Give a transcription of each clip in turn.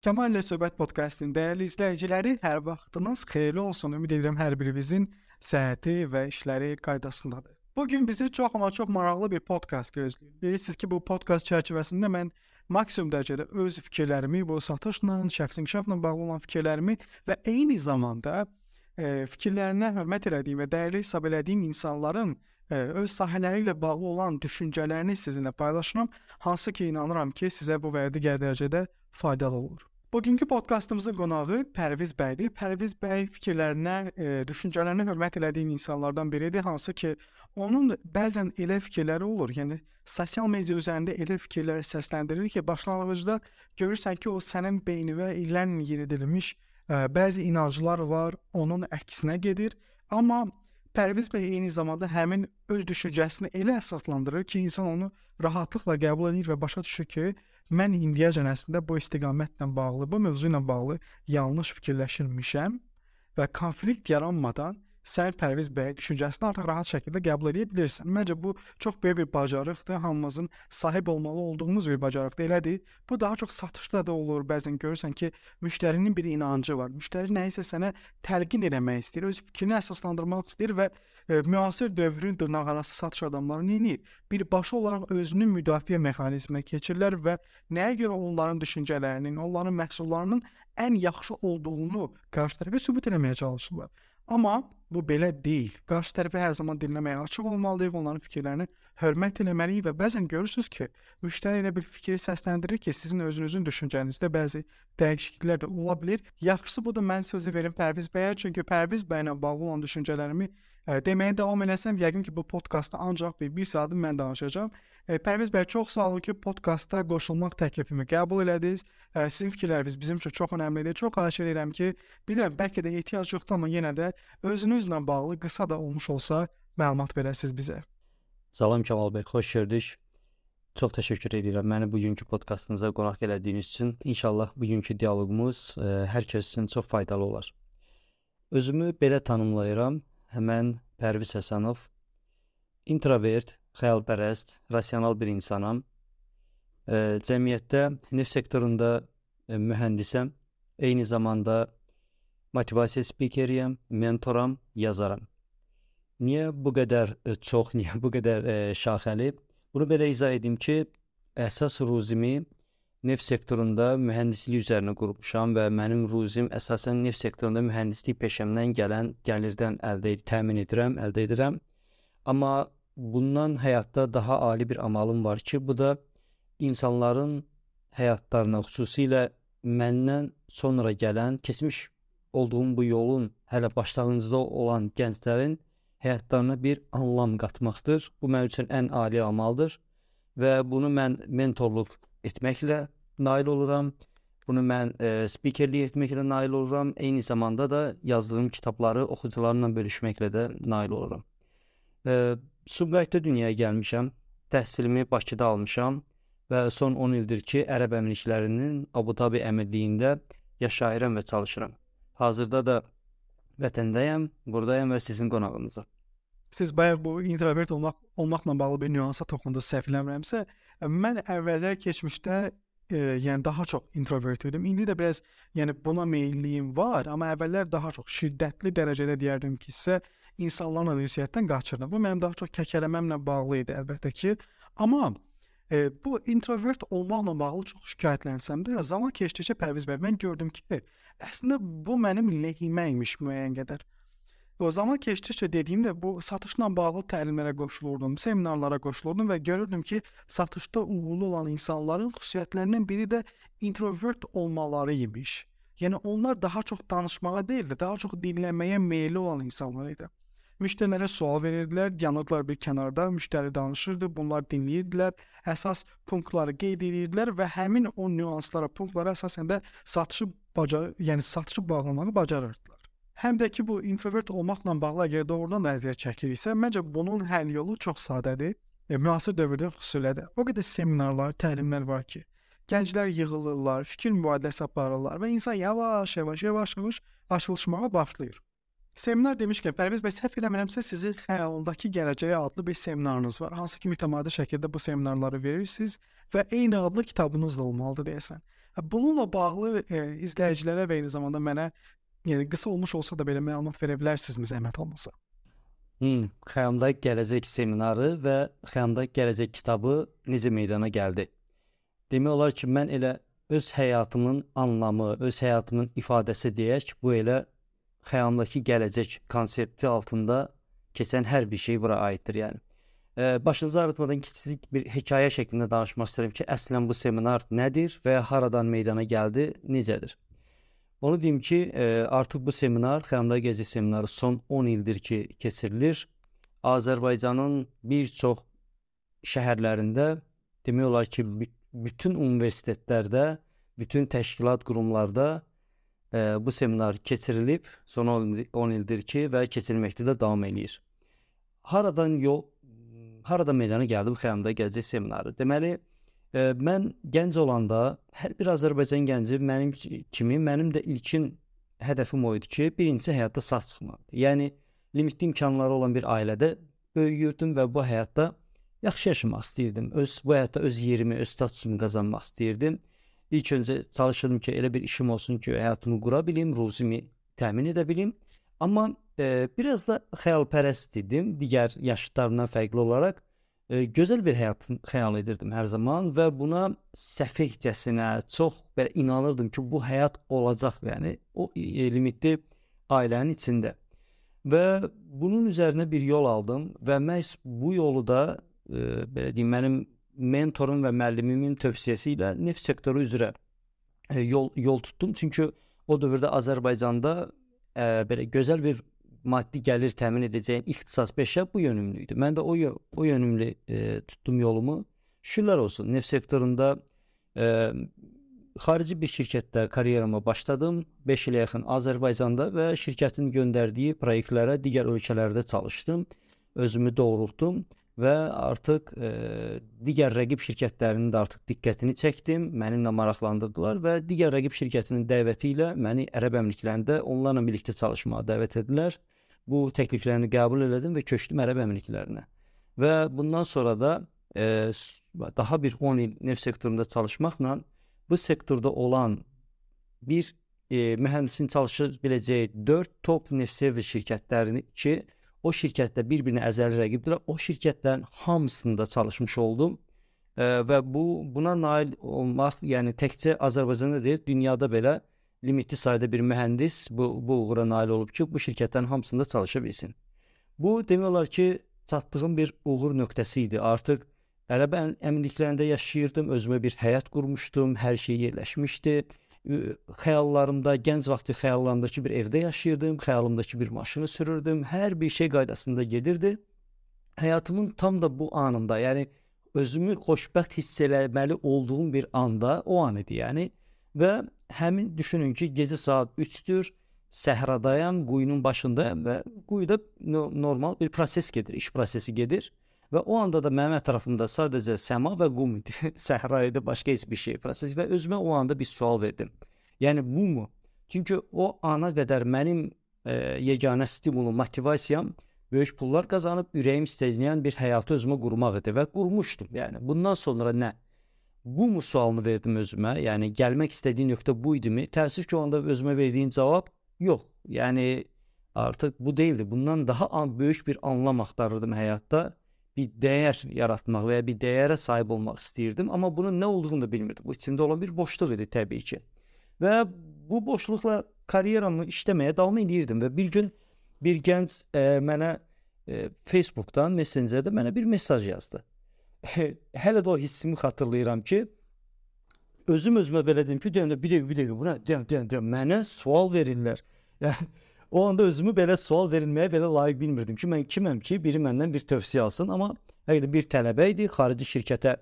Kemal ilə Söhbət podkastının dəyərli izləyiciləri, hər vaxtınız xeyirli olsun. Ümid edirəm hər birinizin səhhəti və işləri qaydasındadır. Bugün bizi çox maraqlı bir podkast gözləyir. Bilirsiniz ki, bu podkast çərçivəsində mən maksimum dərəcədə öz fikirlərimi, bu satışla, şəxsi inkişafla bağlı olan fikirlərimi və eyni zamanda fikirlərinə hörmət etdiyim və dəyərli hesab etdiyim insanların öz sahələri ilə bağlı olan düşüncələrini sizinlə paylaşıram. Hansı ki, inanıram ki, sizə bu və digər dərəcədə faydalı olur. Bugünkü podkastımızın qonağı Pərviz bəydir. Pərviz bəy fikirlərinə, düşüncələrinə hörmət etdiyim insanlardan biridir. Hansı ki, onun bəzən elə fikirləri olur. Yəni sosial media üzərində elə fikirləri səsləndirir ki, başlanğıcda görürsən ki, o sənin beyninə illərlə yeridilmiş bəzi inanclar var, onun əksinə gedir. Amma Pərviz bəy eyni zamanda həmin öz düşüncəsini elə əsaslandırır ki, insan onu rahatlıqla qəbul edir və başa düşür ki, mən indiyəcən əslində bu istiqamətlə bağlı, bu mövzu ilə bağlı yanlış fikirləşirmişəm və konflikt yaranmadan sən Pərviz bəy düşüncəsini artıq rahat şəkildə qəbul edə bilirsən. Məncə bu çox böyük bir bacarıqdır, hamımızın sahib olmalı olduğumuz bir bacarıqdır. Elədir. Bu daha çox satışda da olur. Bəzən görürsən ki, müştərinin bir inancı var. Müştəri nəyisə sənə təlqin etmək istəyir, öz fikrini əsaslandırmaq istəyir və müasir dövrün dırnaqarası satış adamları nə edir? Birbaşa olaraq özünün müdafiə mexanizminə keçirlər və nəyə görə onların düşüncələrinin, onların məhsullarının ən yaxşı olduğunu qarşı tərəfə sübut etməyə çalışırlar. Amma bu belə deyil. Qarşı tərəfə hər zaman dinləməyə açıq olmalıyıq, onların fikirlərini hörmət etməliyik və bəzən görürsünüz ki, müştəri elə bir fikri səsləndirir ki, sizin özünüzün düşüncənizdə bəzi dəyişikliklər də ola bilər. Yaxşısı budur, mən sözü verim Pərviz bəyə, çünki Pərviz bəylə bağlı olan düşüncələrimi deməyə davam eləsəm, yəqin ki, bu podkastda ancaq bir saat mən danışacağam. Pərviz bəy, çox sağ olun ki, podkastda qoşulmaq təklifimi qəbul elədiniz. Sizin fikirləriniz bizim üçün çox önəmlidir. Çox xahiş edirəm ki, bilirəm, bəlkə də ehtiyac yoxdur, amma yenə də özünüzlə bağlı qısa da olmuş olsa məlumat verəsiniz bizə. Salam Kemal bəy, xoş gördük. Çox təşəkkür edirəm məni bugünkü podkastınıza qonaq elədiyiniz üçün. İnşallah bugünkü dialoqumuz hər kəs üçün çox faydalı olar. Özümü belə tanımlayıram. Mən Pərviz Həsənov, introvert, xəyalpərəst, rasional bir insanam. Cəmiyyətdə neft sektorunda mühəndisəm. Eyni zamanda motivasiya spikeriyəm, mentoram, yazaram. Niyə bu qədər çox, niyə bu qədər şaxəli? Bunu belə izah edim ki, əsas ruzimi neft sektorunda mühəndislik üzərinə qurmuşam və mənim ruzim əsasən neft sektorunda mühəndislik peşəmdən gələn gəlirdən təmin edirəm. Amma bundan həyatda daha ali bir amalım var ki, bu da insanların həyatlarına, xüsusilə məndən sonra gələn, keçmiş olduğum bu yolun hələ başlanğıcında olan gənclərin həyatlarına bir anlam qatmaqdır. Bu mənim üçün ən ali amaldır və bunu mən mentorluq etməklə nail oluram. Bunu mən spikerlik etməklə nail oluram. Eyni zamanda da yazdığım kitabları oxucularla bölüşməklə də nail oluram. Sumqayıtda dünyaya gəlmişəm. Təhsilimi Bakıda almışam və son 10 ildir ki, Ərəb Əmirliklərinin Abu Dhabi Əmirliyində yaşayıram və çalışıram. Hazırda da vətəndəyəm, buradayım və sizin qonağınızam. Siz bayaq bu introvert olmaqla bağlı bir nüansa toxundunuz, səhv eləmirəmsə. Mən əvvəllər keçmişdə yəni daha çox introvert idim. İndi də biraz buna meyilliyim var, amma əvvəllər daha çox şiddətli dərəcədə deyərdim ki, insanlarla ünsiyyətdən qaçırdım. Bu mənim daha çox kəkələməmlə bağlı idi əlbəttə ki. Amma bu introvert olmaqla bağlı çox şikayətlənsəm də, zaman keçdikcə Pərviz bəy, mən gördüm ki, əslində bu mənim lehimə imiş müəyyən qədər. O zaman keçdikcə dediyimdə bu satışla bağlı təlimlərə qoşulurdum, seminarlara qoşulurdum və görürdüm ki, satışda uğurlu olan insanların xüsusiyyətlərindən biri də introvert olmaları imiş. Yəni onlar daha çox danışmağa deyil də, daha çox dinləməyə meyilli olan insanlar idi. Müştərilərə sual verirdilər, yanırdılar bir kənarda, müştəri danışırdı, bunlar dinləyirdilər, əsas punktları qeyd edirdilər və həmin o nüanslara, punktlara əsasən də satışı bağlamağı bacarırdılar. Həm də ki, bu introvert olmaqla bağlı əgər doğrudan da əziyyət çəkiriksə, məncə bunun həll yolu çox sadədir. Müasir dövrdə xüsusilə də o qədər seminarlar, təlimlər var ki, gənclər yığılırlar, fikir mübadiləsi aparırlar və insan yavaş-yavaş açılışmağa başlayır. Seminar demişkən, Pərviz bəy, səhv eləmirəmsə sizin xəyalındakı gələcəyə adlı bir seminarınız var. Hansı ki mütəmadi şəkildə bu seminarları verirsiniz və eyni adlı kitabınız da olmalıdır deyəsən. Bununla bağlı izləyicilərə və eyni zamanda mənə qısa olmuş olsa da belə məlumat verə bilərsinizmi zəhmət olmasa? Xəyalımda gələcək seminarı və xəyalımda gələcək kitabı necə meydana gəldi? Demək olar ki, mən elə öz həyatımın anlamı, öz həyatımın ifadəsi deyək, bu elə xəyalımdakı gələcək konsepti altında keçən hər bir şey bura aiddir, yəni. Başınızı ağrıtmadan kiçik bir hekayə şəklində danışmaq istəyirəm ki, əslən bu seminar nədir və haradan meydana gəldi, necədir? Onu deyim ki, artıq bu seminar, xəyalımda gələcək seminarı son 10 ildir ki, keçirilir. Azərbaycanın bir çox şəhərlərində, demək olar ki, bütün universitetlərdə, bütün təşkilat qurumlarda bu seminar keçirilib, son 10 ildir ki və keçirilməkdə də davam eləyir. Haradan meydana gəldi bu xəyalımda gələcək seminarı? Deməli, mən gənc olanda, hər bir Azərbaycan gənci mənim kimi, mənim də ilkin hədəfim o idi ki, birincisi həyatda sağ çıxmaqdır. Yəni, limitli imkanları olan bir ailədə böyüyürdüm və bu həyatda yaxşı yaşamaq istəyirdim. Bu həyatda öz yerimi, öz statusumu qazanmaq istəyirdim. İlk öncə çalışırdım ki, elə bir işim olsun ki, həyatımı qura bilim, ruzimi təmin edə bilim. Amma biraz da xəyalpərəst idim, digər yaşıtlarımdan fərqli olaraq. Gözəl bir həyat xəyal edirdim hər zaman və buna səfehcəsinə çox belə inanırdım ki, bu həyat olacaq, yəni o limitli ailənin içində. Və bunun üzərinə bir yol aldım və məhz bu yolu da belə deyim, mənim mentorum və müəllimimin tövsiyəsi ilə neft sektoru üzrə yol tutdum. Çünki o dövrdə Azərbaycanda belə gözəl bir maddi gəlir təmin edəcəyim ixtisas peşə bu yönümlü idi. Mən də o yönümlü tutdum yolumu. Şükürlər olsun, neft sektorunda xarici bir şirkətdə karyerama başladım. 5 ilə yaxın Azərbaycanda və şirkətin göndərdiyi proyektlərə digər ölkələrdə çalışdım. Özümü doğrultdum və artıq digər rəqib şirkətlərinin də artıq diqqətini çəkdim, mənimlə maraqlandırdılar və digər rəqib şirkətinin dəvəti ilə məni Ərəb Əmirliklərində onlarla birlikdə çalışmağa dəvət edilər. Bu təkliflərini qəbul elədim və köçdüm Ərəb Əmirliklərinə. Və bundan sonra da daha bir 10 il neft sektorunda çalışmaqla bu sektorda olan bir mühəndisin çalışa biləcəyi 4 top neft servis şirkətlərini ki, o şirkətdə bir-birinə əzəli rəqibdirlər. O şirkətlərin hamısında çalışmış oldum və buna nail olmaq, yəni təkcə Azərbaycanda deyil, dünyada belə limitli sayda bir mühəndis bu uğura nail olub ki, bu şirkətlərin hamısında çalışa bilsin. Bu demək olar ki, çatdığım bir uğur nöqtəsi idi. Artıq Ərəb Əmirliklərində yaşayırdım, özümə bir həyat qurmuşdum, hər şey yerləşmişdi. Xəyallarımda, gənc vaxtı xəyallarımdakı bir evdə yaşayırdım, xəyalımdakı bir maşını sürürdüm, hər bir şey qaydasında gedirdi. Həyatımın tam da bu anında, yəni özümü xoşbəxt hiss eləməli olduğum bir anda, o an idi yəni. Və həmin düşünün ki, gecə saat 3-dür, səhradayam, quyunun başındayam və quyuda normal bir proses gedir, iş prosesi gedir. Və o anda da mənim ətrafımda sadəcə səma və qum idi, səhra idi, başqa heç bir şey proses və özümə o anda bir sual verdim. Yəni bu mu? Çünki o ana qədər mənim yeganə stimulum, motivasiyam böyük pullar qazanıb ürəyim istəyən bir həyatı özümə qurmaq idi və qurmuşdum. Yəni bundan sonra nə? Bu mu sualını verdim özümə? Yəni gəlmək istədiyim nöqtə bu idimi? Təəssüf ki, o anda özümə verdiyim cavab yox. Yəni artıq bu deyildi. Bundan daha böyük bir anlam axtarırdım həyatda. Bir dəyər yaratmaq və ya bir dəyərə sahib olmaq istəyirdim, amma bunun nə olduğunu da bilmirdim. Bu içimdə olan bir boşluq idi təbii ki. Və bu boşluqla karyeramı işləməyə davam edirdim və bir gün bir gənc mənə Facebookdan, Messengerdə mənə bir mesaj yazdı. Hələ də o hissimi xatırlayıram ki, özümə belə dedim ki, bir dəqiqə, buna mənə sual verirlər. Yəni o anda özümü belə sual verilməyə belə layiq bilmirdim ki, mən kiməm ki, biri məndən bir tövsiyə alsın, amma həqiqətən bir tələbə idi, xarici şirkətə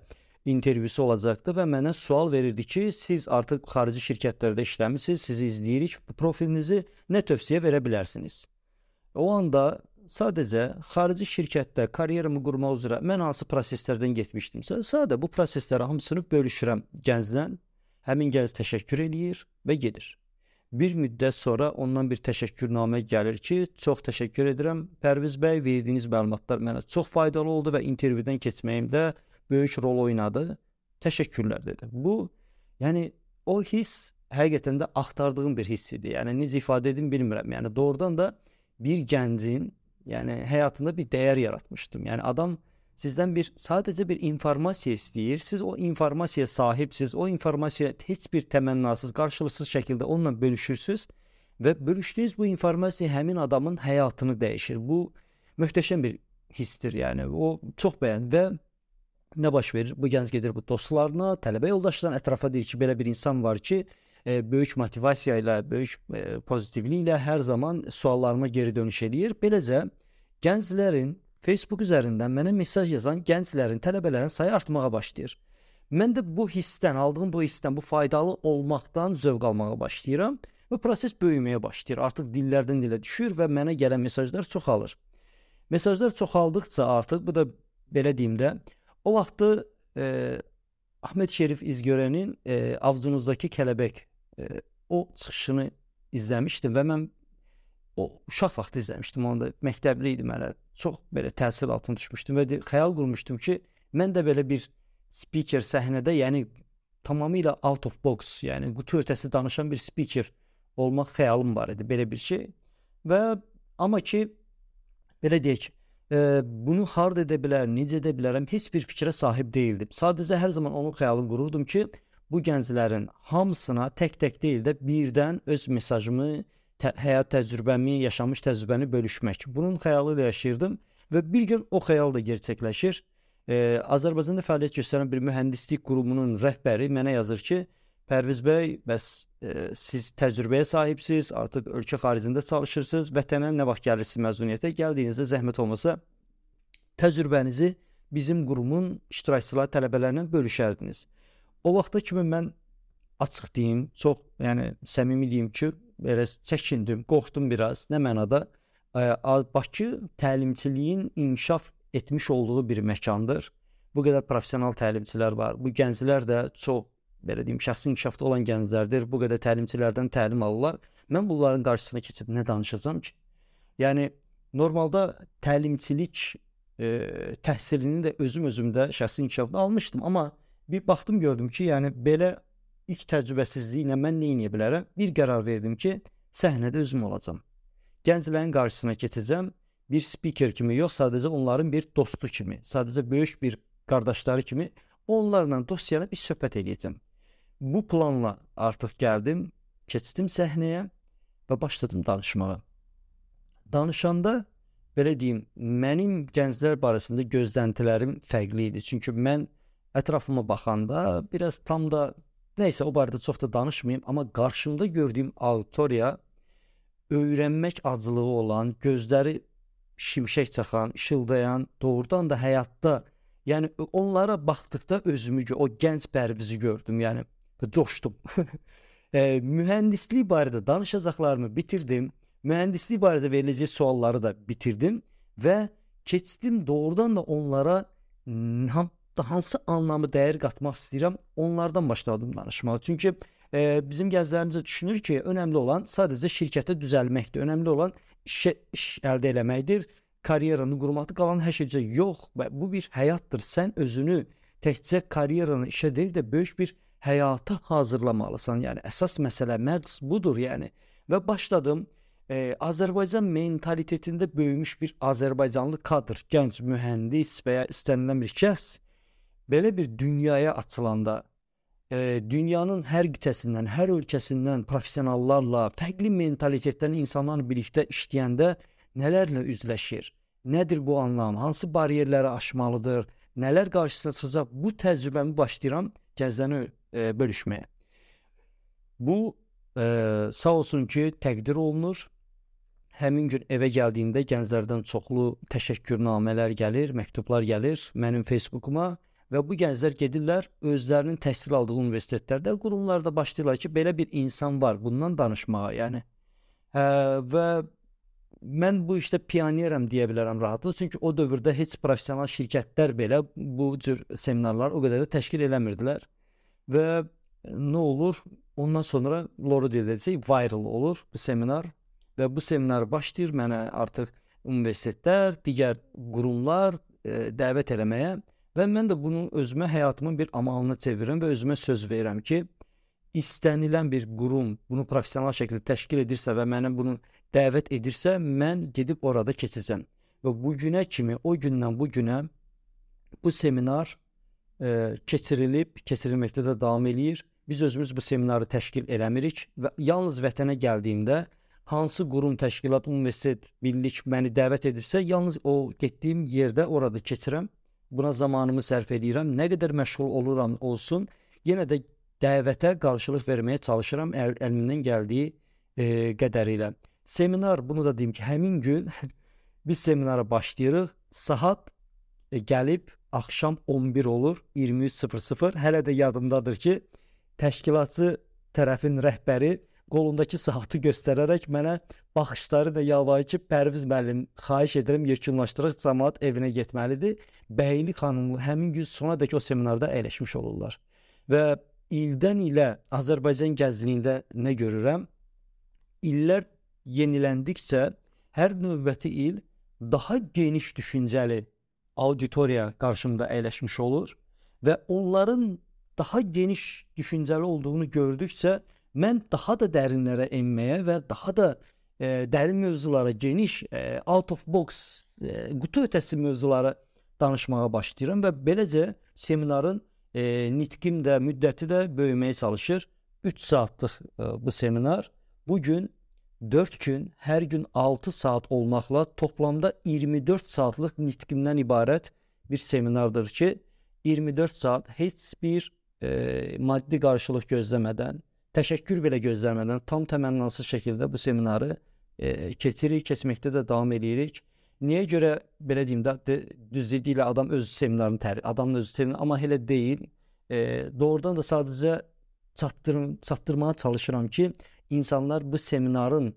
intervyusu olacaqdı və mənə sual verirdi ki, siz artıq xarici şirkətlərdə işləmisiniz, sizi izləyirik, bu profilinizi nə tövsiyə verə bilərsiniz? O anda sadəcə xarici şirkətdə karyeramı qurmaq üzrə mən hansı proseslərdən getmişdimsə, sadə bu prosesləri hamısını bölüşürəm gəncdən, həmin gənc təşəkkür eləyir və gedir. Bir müddət sonra ondan bir təşəkkürnamə gəlir ki, çox təşəkkür edirəm Pərviz bəy, verdiyiniz məlumatlar mənə çox faydalı oldu və intervyudan keçməyimdə böyük rol oynadı. Təşəkkürlər dedi. Bu, yəni o hiss həqiqətən də axtardığım bir hiss idi. Yəni necə ifadə edim bilmirəm. Yəni doğrudan da bir gəncin, yəni həyatında bir dəyər yaratmışdım. Yəni adam sizdən sadəcə bir informasiya istəyir. Siz o informasiyaya sahibsiz. O informasiya heç bir təmənnasız, qarşılıqsız şəkildə onunla bölüşürsüz və bölüşdüyünüz bu informasiya həmin adamın həyatını dəyişir. Bu möhtəşəm bir hissdir. Yəni o çox bəyəndim və nə baş verir? Bu gənc gedir bu dostlarına, tələbə yoldaşlarına, ətrafa deyir ki, belə bir insan var ki, böyük motivasiya ilə, böyük pozitivliklə hər zaman suallarıma geri dönüş edir. Beləcə gənclərin Facebook üzərindən mənə mesaj yazan gənclərin, tələbələrin sayı artmağa başlayır. Mən də bu hissdən, aldığım bu hissdən, bu faydalı olmaqdan zövq almağa başlayıram və proses böyüməyə başlayır. Artıq dillərdən dilə düşür və mənə gələn mesajlar çoxalır. Mesajlar çoxaldıqca artıq, bu da belə deyim də, o vaxtı Ahmet Şerif İzgörənin Avcunuzdakı Kələbək o çıxışını izləmişdim və mən o uşaq vaxtı izləmişdim. Onda məktəbli idim hələ. Çox belə təsir altına düşmüşdüm və xəyal qurmuşdum ki, mən də belə bir speaker səhnədə, yəni tamamilə out of box, yəni qutu ötəsi danışan bir speaker olmaq xəyalım var idi, belə bir şey. Və amma ki, belə deyək, bunu harda edə bilər, necə edə bilərəm, heç bir fikrə sahib deyildim. Sadəcə hər zaman onun xəyalını qururdum ki, bu gənclərin hamısına tək-tək deyil də birdən öz mesajımı, həyat təcrübəmi, yaşamış təcrübəni bölüşmək. Bunun xəyalı ilə yaşayırdım və bir gün o xəyal da gerçəkləşir. Azərbaycanda fəaliyyət göstərən bir mühəndislik qurumunun rəhbəri mənə yazır ki, Pərviz bəy, bəs siz təcrübəyə sahibsiz, artıq ölkə xaricində çalışırsınız, vətənə nə vaxt gəlirsiniz məzuniyyətə, gəldiyinizdə zəhmət olmasa təcrübənizi bizim qurumun iştirakçıları, tələbələrlə bölüşərdiniz. O vaxta kimi mən açıq deyim, çox, yəni səmimi deyim ki, belə çəkindim, qorxdum biraz. Nə mənada? Bakı təlimçiliyin inkişaf etmiş olduğu bir məkandır. Bu qədər professional təlimçilər var. Bu gənclər də çox, belə deyim, şəxsi inkişafda olan gənclərdir. Bu qədər təlimçilərdən təlim alırlar. Mən bunların qarşısına keçib nə danışacağam ki? Yəni normalda təlimçilik təhsilini də özümdə şəxsi inkişafda almışdım, amma bir baxdım, gördüm ki, yəni belə ilk təcrübəsizliklə mən nə edə bilərəm? Bir qərar verdim ki, səhnədə özüm olacağam. Gənclərin qarşısına keçəcəm, bir speaker kimi yox, sadəcə onların bir dostu kimi, sadəcə böyük bir qardaşları kimi onlarla dostyanıb bir söhbət edəcəm. Bu planla artıq gəldim, keçdim səhnəyə və başladım danışmağa. Danışanda, belə deyim, mənim gənclər barəsində gözləntilərim fərqli idi. Çünki mən ətrafıma baxanda biraz tam da nəysə, o barədə çox da danışmayayım, amma qarşımda gördüyüm auditoriya öyrənmək acılığı olan, gözləri şimşək çaxan, işıldayan, doğrudan da həyatda, yəni onlara baxdıqda özümü, o gənc Pərvizi gördüm, yəni coşdum. Mühəndislik barədə danışacaqlarımı bitirdim, mühəndislik barədə veriləcək sualları da bitirdim və keçdim doğrudan da onlara hansı anlamı dəyər qatmaq istəyirəm, onlardan başladım danışmağa. Çünki bizim gənclərimizə düşünür ki, önəmli olan sadəcə şirkətə düzəlməkdir, önəmli olan iş əldə eləməkdir, karyeranı qurmaqdır, qalan hər şeycə yox. Bu bir həyatdır. Sən özünü təkcə karyeranı işə deyil də böyük bir həyata hazırlamalısan. Yəni əsas məsələ, məqsəd budur yəni. Və başladım Azərbaycan mentalitetində böyümüş bir Azərbaycanlı kadr, gənc mühəndis və ya istənilən bir şəxs belə bir dünyaya açılanda, dünyanın hər qitəsindən, hər ölkəsindən professionallarla, fərqli mentalitetdən insanlarla birlikdə işləyəndə nələrlə üzləşir? Nədir bu anlam? Hansı bariyerləri aşmalıdır? Nələr qarşısına çıxacaq? Bu təcrübəmi başlayıram gənclərlə bölüşməyə. Bu sağ olsun ki, təqdir olunur. Həmin gün evə gəldiyimdə gənclərdən çoxlu təşəkkürnamələr gəlir, məktublar gəlir mənim Facebookuma və bu gənclər gedirlər özlərinin təhsil aldığı universitetlərdə, qurumlarda başlayırlar ki, belə bir insan var, bundan danışmağa, yəni. Və mən bu işdə pionerəm deyə bilərəm rahatlıqla, çünki o dövrdə heç professional şirkətlər belə bu cür seminarlar o qədər də təşkil eləmirdilər və nə olur? Ondan sonra Loro deyəcək, viral olur bu seminar və bu seminar başlayır mənə artıq universitetlər, digər qurumlar dəvət eləməyə və mən də bunu özümə həyatımın bir amalına çevirirəm və özümə söz verirəm ki, istənilən bir qurum bunu professional şəkildə təşkil edirsə və mənə bunu dəvət edirsə, mən gedib orada keçəcəm. Və bu günə kimi, o gündən bu günə bu seminar keçirilməkdə də davam eləyir. Biz özümüz bu seminarı təşkil eləmirik və yalnız vətənə gəldiyimdə hansı qurum, təşkilat, universitet, birlik məni dəvət edirsə, yalnız o getdiyim yerdə orada keçirəm. Buna zamanımı sərf edirəm. Nə qədər məşğul oluram olsun, yenə də dəvətə qarşılıq verməyə çalışıram əlimdən gəldiyi qədərilə. Seminar, bunu da deyim ki, həmin gün biz seminara başlayırıq. Saat gəlib axşam 11 olur, 23:00. Hələ də yadımdadır ki, təşkilatçı tərəfin rəhbəri qolundakı saatı göstərərək mənə baxışları da yalvarır ki, Pərviz müəllim, xahiş edirəm, yekunlaşdıraq, cəmaət evinə getməlidir. Bəyli xanımlı həmin gün sonadək o seminarda əyləşmiş olurlar. Və ildən ilə Azərbaycan gəzliyində nə görürəm? İllər yeniləndikcə hər növbəti il daha geniş düşüncəli auditoriya qarşımda əyləşmiş olur və onların daha geniş düşüncəli olduğunu gördükcə mən daha da dərinlərə enməyə və daha da dərin mövzulara, geniş, out of box, qutu ötəsi mövzulara danışmağa başlayıram və beləcə seminarın nitqim də, müddəti də böyüməyə çalışır. 3 saatlıq bu seminar bugün 4 gün, hər gün 6 saat olmaqla toplamda 24 saatlıq nitqimdən ibarət bir seminardır ki, 24 saat heç bir maddi qarşılıq gözləmədən, təşəkkür belə gözləmədən tam təmənnasız şəkildə bu seminarı keçirik, keçməkdə də davam edirik. Niyə görə belə deyim də, düzlüklə adam öz seminarını adamın özü sevinir, amma elə deyil. Doğrudan da sadəcə çatdırmağa çalışıram ki, insanlar bu seminarın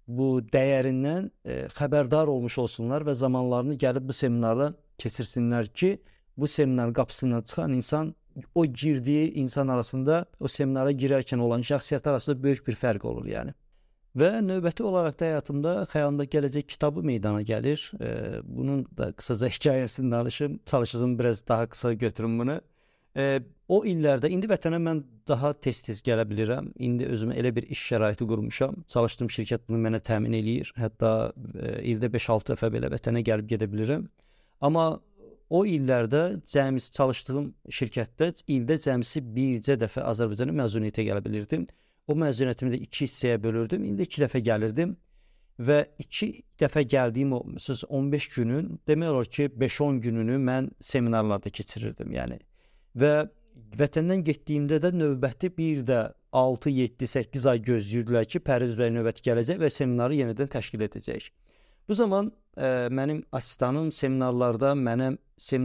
bu dəyərindən xəbərdar olmuş olsunlar və zamanlarını gəlib bu seminarda keçirsinlər ki, bu seminarın qapısından çıxan insan, o girdiyi insan arasında, o seminara girərkən olan şəxsiyyət arasında böyük bir fərq olur yəni. Və növbəti olaraq da həyatımda Xəyalımda Gələcək kitabı meydana gəlir. Bunun da qısaca hekayəsini danışım, çalışacağım biraz daha qısa götürüm bunu. O illərdə, indi vətənə mən daha tez-tez gələ bilirəm. İndi özümə elə bir iş şəraiti qurmuşam. Çalışdığım şirkət bunu mənə təmin eləyir. Hətta ildə 5-6 dəfə belə vətənə gəlib gedə bilirəm. Amma o illərdə çalışdığım şirkətdə ildə cəmisi bircə dəfə Azərbaycana məzuniyyətə gələ bilirdim. O məzuniyyətimi də 2 hissəyə bölürdüm. İldə 2 dəfə gəlirdim və 2 dəfə gəldiyim o 15 günün, demək olar ki, 5-10 gününü mən seminarlarda keçirirdim yəni. Və vətəndən getdiyimdə də növbəti bir də 6, 7, 8 ay gözləyirdilər ki, Pərviz bəy növbəti gələcək və seminarı yenidən təşkil edəcək. Bu zaman mənim asistanım seminarlarda mənə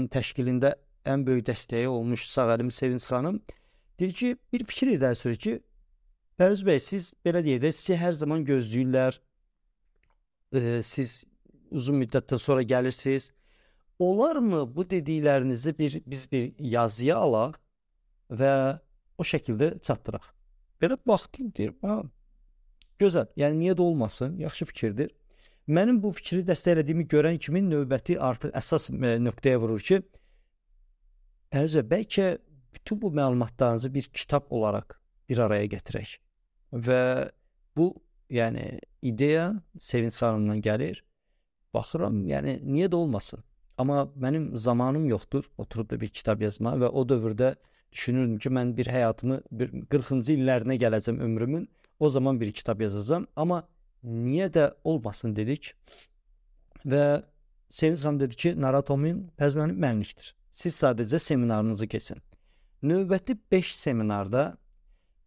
təşkilində ən böyük dəstəyi olmuş Sağəlim Sevinç xanım deyir ki, bir fikir irəli sürür ki, Pərviz bəy, siz belə deyək də, sizi hər zaman gözləyirlər, siz uzun müddətdən sonra gəlirsiniz. Olarmı bu dediklərinizi biz bir yazıya alaq və o şəkildə çatdıraq? Belə baxdım, deyir, gözəl, yəni niyə də olmasın, yaxşı fikirdir. Mənim bu fikri dəstəklədiyimi görən kimi növbəti artıq əsas nöqtəyə vurur ki, Pərviz bəy, bəlkə bütün bu məlumatlarınızı bir kitab olaraq bir araya gətirək. Və bu, yəni, ideya Sevinç xanımdan gəlir. Baxıram, yəni, niyə də olmasın? Amma mənim zamanım yoxdur, oturub da bir kitab yazma və o dövrdə düşünürdüm ki, mən bir həyatımı 40-cı illərinə gələcəm ömrümün, o zaman bir kitab yazacağım. Amma niyə də olmasın dedik və Sevinç xanım dedi ki, naratomin Pərviz mənlikdir. Siz sadəcə seminarınızı keçin. Növbəti 5 seminarda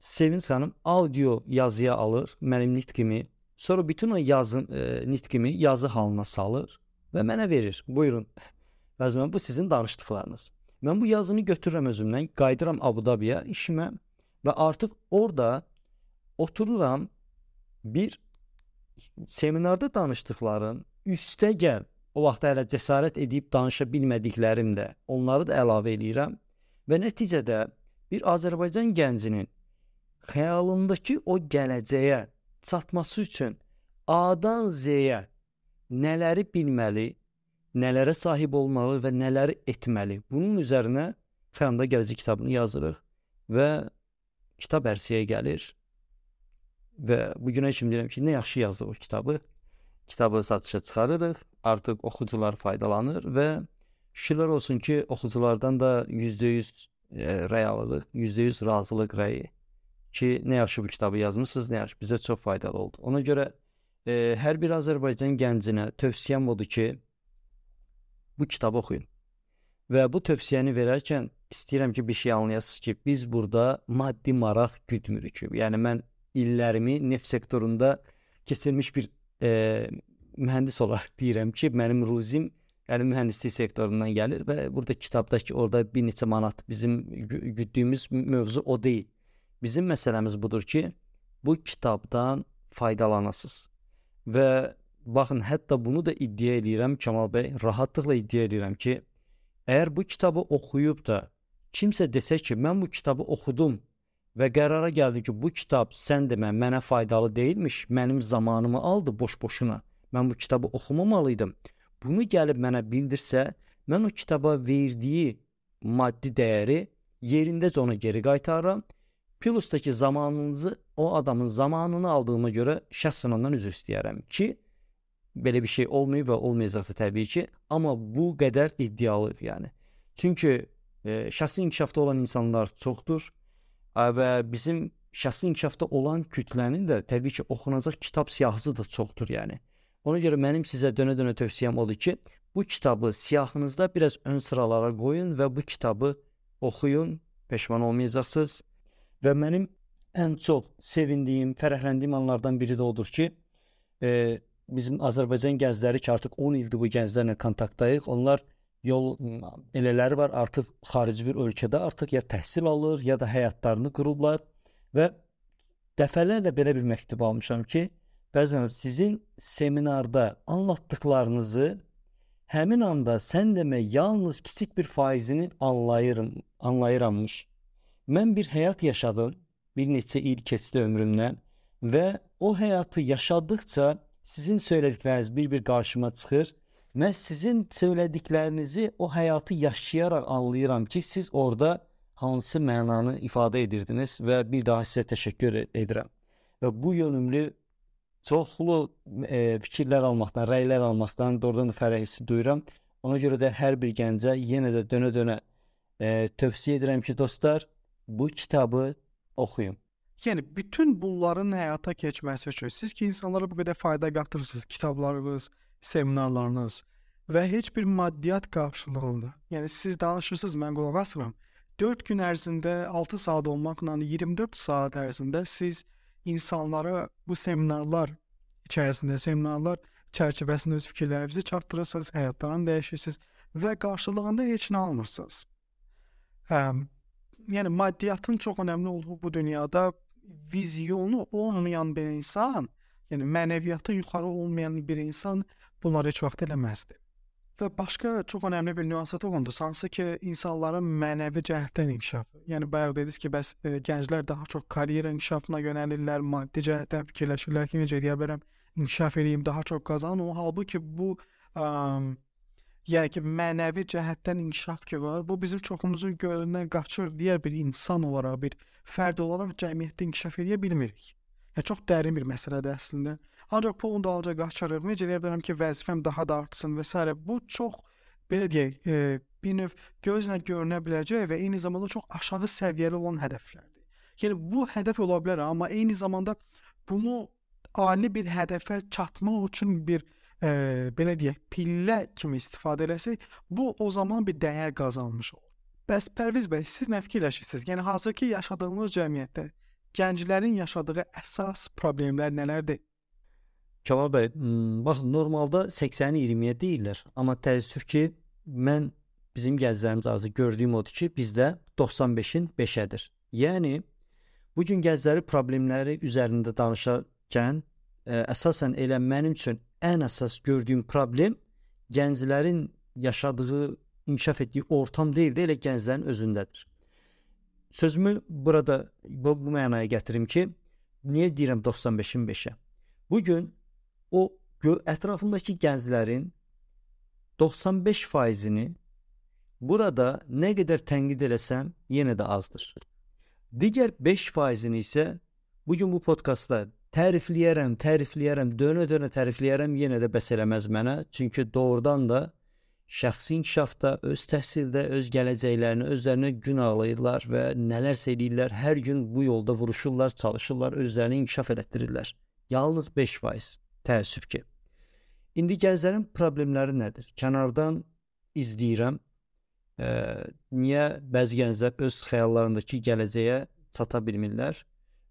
Sevinç xanım audio yazıya alır, mənim nitqimi, sonra bütün o nitqimi yazı halına salır və mənə verir. Buyurun, Pərviz müəllim, bu sizin danışdıqlarınız. Mən bu yazını götürürəm özümdən, qayıdıram Abu Dhabiyə işimə və artıq orada otururam, bir seminarda danışdıqlarım, üstəgəl, o vaxt hələ cəsarət edib danışa bilmədiklərim də, onları da əlavə edirəm və nəticədə bir Azərbaycan gəncinin xəyalındakı o gələcəyə çatması üçün A-dan Z-yə nələri bilməli, nələrə sahib olmalı və nələri etməli. Bunun üzərinə Xəyalında Gələcək kitabını yazırıq və kitab ərsəyə gəlir və bu günə kimi deyirəm ki, nə yaxşı yazdıq o kitabı. Kitabı satışa çıxarırıq, artıq oxucular faydalanır və şükürlər olsun ki, oxuculardan da %100 rəy alırıq, %100 razılıq rəyi ki, nə yaxşı bu kitabı yazmısınız, nə yaxşı, bizə çox faydalı oldu. Ona görə hər bir Azərbaycan gəncinə tövsiyəm odur ki, bu kitabı oxuyun. Və bu tövsiyəni verərkən istəyirəm ki, bir şey anlayasınız ki, biz burada maddi maraq güdmürük. Yəni mən illərimi neft sektorunda keçirmiş bir mühəndis olaraq deyirəm ki, mənim ruzim yəni mühəndislik sektorundan gəlir və burada kitabdakı orada bir neçə manat bizim güddüyümüz mövzu o deyil. Bizim məsələmiz budur ki, bu kitabdan faydalanasınız. Və baxın, hətta bunu da iddia edirəm Kamal bəy, rahatlıqla iddia edirəm ki, əgər bu kitabı oxuyub da kimsə desə ki, mən bu kitabı oxudum və qərara gəldim ki, bu kitab sən demə mənə faydalı deyilmiş, mənim zamanımı aldı boş-boşuna, mən bu kitabı oxumamalıydım. Bunu gəlib mənə bildirsə, mən o kitaba verdiyi maddi dəyəri yerindəcə ona geri qaytarıram. Plus-daki zamanınızı, o adamın zamanını aldığıma görə şəxsən ondan üzr istəyərəm ki, belə bir şey olmayıb və olmayacaqsa təbii ki, amma bu qədər iddialıyıq yəni. Çünki şəxsi inkişafda olan insanlar çoxdur və bizim şəxsi inkişafda olan kütlənin də təbii ki, oxunacaq kitab siyahısı da çoxdur yəni. Ona görə mənim sizə dönə-dönə tövsiyəm odur ki, bu kitabı siyahınızda biraz ön sıralara qoyun və bu kitabı oxuyun, peşman olmayacaqsınız. Və mənim ən çox sevindiyim, fərəhləndiyim anlardan biri də odur ki, bizim Azərbaycan gəncləri ki, artıq 10 ildir bu gənclərlə kontaktdayıq. Onlar yol elələri var, artıq xarici bir ölkədə artıq ya təhsil alır, ya da həyatlarını qurublar və dəfələrlə belə bir məktub almışam ki, bəzən sizin seminarda anlatdıqlarınızı həmin anda sən demə yalnız kiçik bir faizini anlayırammış. Mən bir həyat yaşadım, bir neçə il keçdi ömrümdən və o həyatı yaşadıkça sizin söylədikləriniz bir qarşıma çıxır. Mən sizin söylədiklərinizi o həyatı yaşayaraq anlayıram ki, siz orada hansı mənanı ifadə edirdiniz və bir daha sizə təşəkkür edirəm. Və bu yönümlü çoxlu fikirlər almaqdan, rəylər almaqdan doğrudan da fərəh hissi duyuram. Ona görə də hər bir gəncə yenə də dönə-dönə tövsiyə edirəm ki, dostlar, bu kitabı oxuyun. Yəni bütün bunların həyata keçməsi üçün siz ki, insanlara bu qədər fayda qatırırsınız, kitablarınız, seminarlarınız və heç bir maddiyyat qarşılığında. Yəni siz danışırsınız, mən qulaq asıram. 4 gün ərzində 6 saat olmaqla 24 saat ərzində siz insanlara bu seminarlar çərçivəsində öz fikirlərinizi çatdırırsınız, həyatlarını dəyişirsiniz və qarşılığında heç nə almırsınız. Yəni maddiyyatın çox önəmli olduğu bu dünyada vizyonu olmayan bir insan, yəni mənəviyyatı yuxarı olmayan bir insan bunları heç vaxt eləməzdi. Və başqa çox önəmli bir nüansa toxundunuz, hansı ki, insanların mənəvi cəhətdən inkişafı. Yəni bayaq dediniz ki, bəs gənclər daha çox karyera inkişafına yönəlirlər, maddi cəhətdən fikirləşirlər ki, necə edə bilərəm, inkişaf edeyim, daha çox qazanım. Halbuki bu yəni ki, mənəvi cəhətdən inkişaf ki var, bu bizim çoxumuzun gözündən qaçır. Digər bir insan olaraq, bir fərd olaraq cəmiyyətdə inkişaf edə bilmirik. Yəni çox dərin bir məsələdir əslində. Ancaq pulun dalınca qaçırıq. Necə edə bilərəm ki, vəzifəm daha da artsın və s. Bu çox belə deyək, bir növ gözlə görünə biləcək və eyni zamanda çox aşağı səviyyəli olan hədəflərdir. Yəni bu hədəf ola bilər, amma eyni zamanda bunu ali bir hədəfə çatmaq üçün bir belə deyək, pillə kimi istifadə eləsək, bu o zaman bir dəyər qazanmış olur. Bəs Pərviz bəy, siz nə fikirləşirsiniz? Yəni hazırki yaşadığımız cəmiyyətdə gənclərin yaşadığı əsas problemlər nələrdir? Kamal bəy, baxın, normalda 80-20-yə deyirlər, amma təəssüf ki, mən bizim gənclərimiz arzu gördüyüm odur ki, bizdə 95-in 5-ədir. Yəni, bugün gəncləri problemləri üzərində danışarkən, əsasən elə mənim üçün ən əsas gördüyüm problem gənclərin yaşadığı, inkişaf etdiyi ortam deyil də, elə gənclərin özündədir. Sözümü burada bu mənaya gətirim ki, niyə deyirəm 95-in 5-ə? Bu gün o ətrafımdakı gənclərin 95%-ni burada nə qədər tənqid eləsəm, yenə də azdır. Digər 5%-ni isə bu gün bu podkastda tərifləyərəm, dönə-dönə tərifləyərəm, yenə də bəs eləməz mənə. Çünki doğrudan da şəxsi inkişafda, öz təhsildə, öz gələcəklərini özlərinə gün ağlayırlar və nələrsə edirlər. Hər gün bu yolda vuruşurlar, çalışırlar, özlərini inkişaf elətdirirlər. Yalnız 5%. Təəssüf ki. İndi gənclərin problemləri nədir? Kənardan izləyirəm. Niyə bəzi gənclər öz xəyallarındakı gələcəyə çata bilmirlər?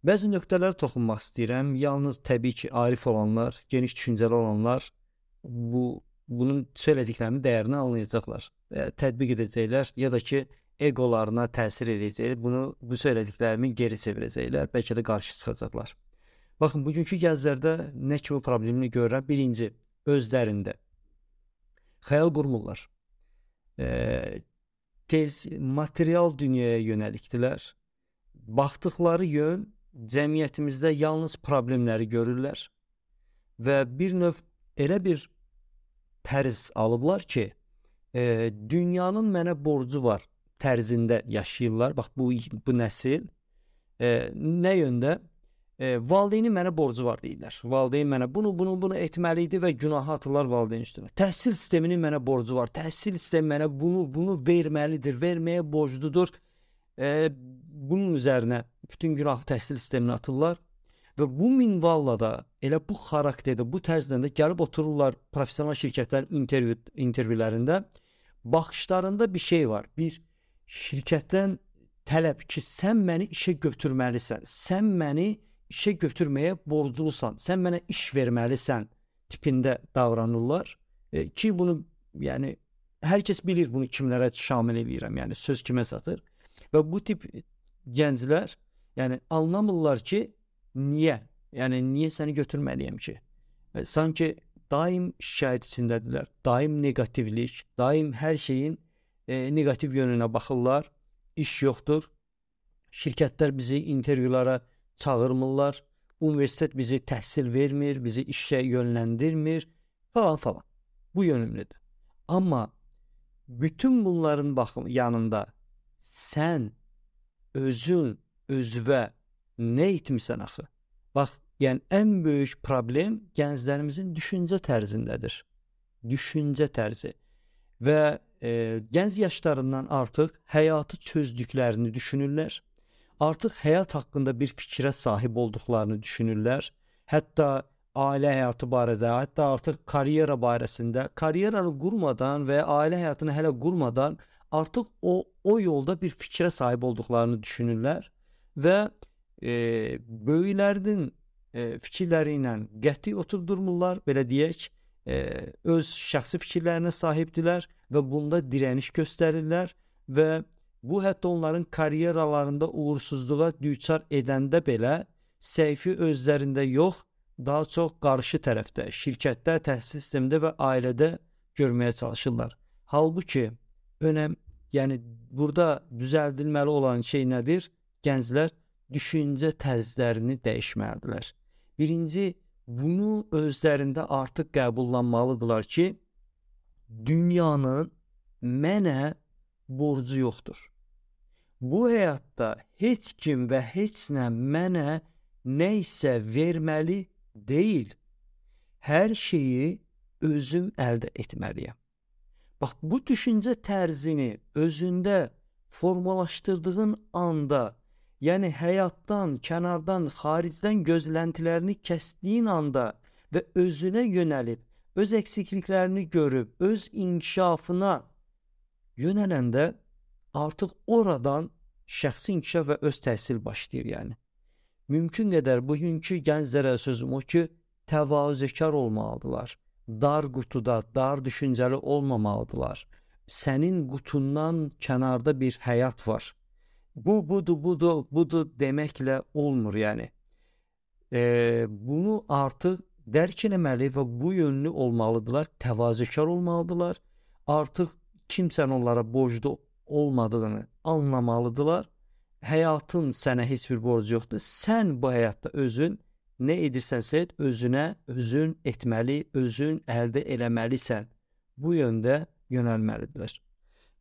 Bəzi nöqtələrə toxunmaq istəyirəm. Yalnız təbii ki, arif olanlar, geniş düşüncəli olanlar bunun söylədiklərinin dəyərini anlayacaqlar. Tətbiq edəcəklər ya da ki, egolarına təsir edəcək. Bu söylədiklərimi geri çevirəcəklər. Bəlkə də qarşı çıxacaqlar. Baxın, bugünkü gənclərdə nə kimi problemini görürəm? Birinci, özlərində xəyal qurmurlar. Tez material dünyaya yönəlikdilər. Baxdıqları yön cəmiyyətimizdə yalnız problemləri görürlər və bir növ elə bir tərz alıblar ki, dünyanın mənə borcu var tərzində yaşayırlar. Bax, bu nəsil nə yöndə? Valideynin mənə borcu var deyirlər. Valideyn mənə bunu etməli idi və günahı atırlar valideyn üstünə. Təhsil sisteminin mənə borcu var. Təhsil sistemi mənə bunu verməlidir, verməyə borcludur. Bunun üzərinə bütün günahı təhsil sisteminə atırlar və bu minvalla da elə bu xarakterdə, bu tərzdə də gəlib otururlar professional şirkətlərin intervyularında. Baxışlarında bir şey var. Bir şirkətdən tələb ki, sən məni işə götürməlisən. Sən məni işə götürməyə borclusan, sən mənə iş verməlisən tipində davranırlar ki, bunu yəni hər kəs bilir bunu kimlərə şamil edirəm, yəni söz kimə satır və bu tip gənclər yəni anlamırlar ki, niyə? Yəni niyə səni götürməliyəm ki? Sanki daim şikayət içindədirlər, daim negativlik, daim hər şeyin negativ yönünə baxırlar, iş yoxdur, şirkətlər bizi intervyulara çağırmırlar, universitet bizi təhsil vermir, bizi işə yönləndirmir falan. Bu yönümlüdür. Amma bütün bunların yanında sən özünə nə etmirsən axı? Bax, yəni ən böyük problem gənclərimizin düşüncə tərzindədir. Düşüncə tərzi. Və gənc yaşlarından artıq həyatı çözdüklərini düşünürlər. Artıq həyat haqqında bir fikrə sahib olduqlarını düşünürlər. Hətta ailə həyatı barədə, hətta artıq karyera barəsində, karyeranı qurmadan və ailə həyatını hələ qurmadan artıq o yolda bir fikrə sahib olduqlarını düşünürlər və böyüklərinin fikirləri ilə qəti oturdurmurlar, belə deyək, öz şəxsi fikirlərinə sahibdilər və bunda dirəniş göstərirlər və bu hətta onların karyeralarında uğursuzluğa düçar edəndə belə səhvi özlərində yox, daha çox qarşı tərəfdə, şirkətdə, təhsil sistemində və ailədə görməyə çalışırlar. Halbuki yəni burada düzəldilməli olan şey nədir? Gənclər düşüncə tərzlərini dəyişməlidirlər. Birinci, bunu özlərində artıq qəbullanmalıdırlar ki, dünyanın mənə borcu yoxdur. Bu həyatda heç kim və heç nə mənə nə isə verməli deyil. Hər şeyi özüm əldə etməliyəm. Bax, bu düşüncə tərzini özündə formalaşdırdığın anda, yəni həyatdan, kənardan, xaricdən gözləntilərini kəsdiyin anda və özünə yönəlib, öz əksikliklərini görüb, öz inkişafına yönələndə artıq oradan şəxsi inkişaf və öz təhsil başlayır yəni. Mümkün qədər bugünkü gənclərə sözüm o ki, təvazökar olmalıdırlar. Dar qutuda, dar düşüncəli olmamalıdırlar. Sənin qutundan kənarda bir həyat var. Budur deməklə olmur yəni. Bunu artıq dərk eləməli və bu yönlü olmalıdırlar, təvazökar olmalıdırlar. Artıq kimsən onlara borclu olmadığını anlamalıdırlar həyatın sənə heç bir borcu yoxdur. Sən bu həyatda özün nə edirsənsə et, özün etməli, özün əldə eləməlisən. Bu yöndə yönəlməlidirlər.